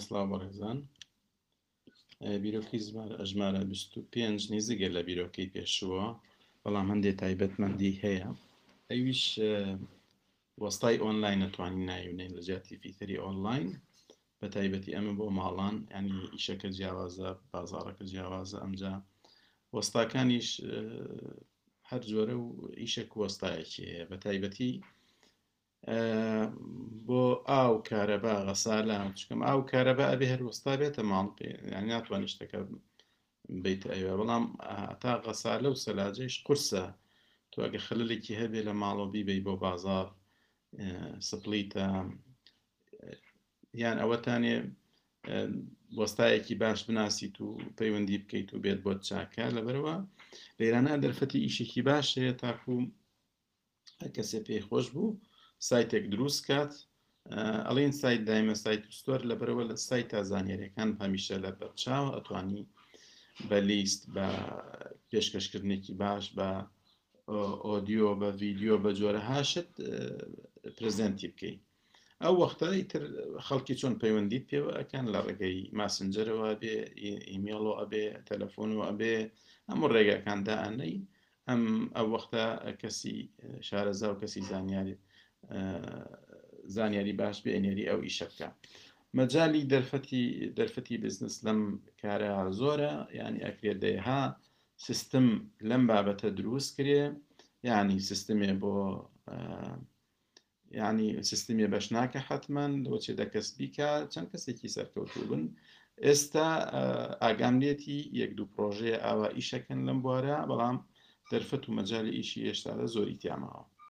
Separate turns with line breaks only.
سڵاو بەڕێزان. بیرۆکەی ژمارە 25 نزیکە لە بیرۆکەی پێشووە، بەڵام هەندێک تایبەتمەندی هەیە. ئەویش وەستای ئۆنلاین نەتوانین ناوی لە جیاتی fitter ی ئۆنلاین، بە تایبەتی ئەمە بۆ ماڵان، ینی ئیشەکە جیاوازە، بازاڕەکە جیاوازە. ئەمجا وەستاکانیش هەر جۆرە و ئیشێک وەستایەکی هەیە، بە تایبەتی بۆ ئاو، کارەبا، غەسالە. چکەم ئاو کارەبا ئەبێ هەر وەستا بێتە ماڵ پێ، یانی ناتوانانی شتەکە بیتە ئەوێ. بەڵام تا غەسالە و سەلاجەیش قورسە، تۆ ئەگە خەلەلێکی هەبێ لە ماڵەوە بیبەی بۆ بازاڕ، split ە یان ئەوەتانێ وەستایەکی باش بناسیت و پەیوەندی بکەیت و بێت بۆت چاکە. لەبەرەوە لێرانە دەرفەتی ئیشێکی باش هەیە تاکو هەر کەسێ پێی خۆش بوو سایتێک دروست کات. ئەڵین سایت دایمە سایت و store، لەبەرەوە لە سایت تا زانیاریەکان هەمیشە لە بەرچاوە، ئەتوانی بە لیست، بە پێشکەشکردنێکی باش، بە ئۆدیۆ، بە ڤیدیۆ، بە جۆرەها شت present ی بکەیت. ئەو وەختە ئیتر خەڵکی چۆن پەیوەندیت پێوە ئەکەن، لە ڕێگەی ماسنجەرەوە ئەبێ، ئیمێڵەوە ئەبێ، تەلەفۆنەوە ئەبێ، هەموو ڕێگاکان دائەنەی. ئەم ئەو وەختە کەسی شارەزا و کەسی زانیاری زانیاری باش بێ ئەنێری ئەو ئیشە بکە. مەجای دەرفەتی بزنس لەم کارە زۆرە، یعنی ئەکرێت دەیها سیستم لەم بابەتە دروست کرێ، یعنی سیستمێ بۆ یعنی سیستمی بەش ناکە حتمما لەوە چێ دە کەس بیکە، چەند کەسێکی سەرکەوتوو بن. ئێستا ئاگام لێتی یەک دوو پرۆژەیە ئاوا ئیشەکەن لەم بوارە، بەڵام دەرفەت و مەجای ئیشی هێشتا لە زۆری تیاماوە.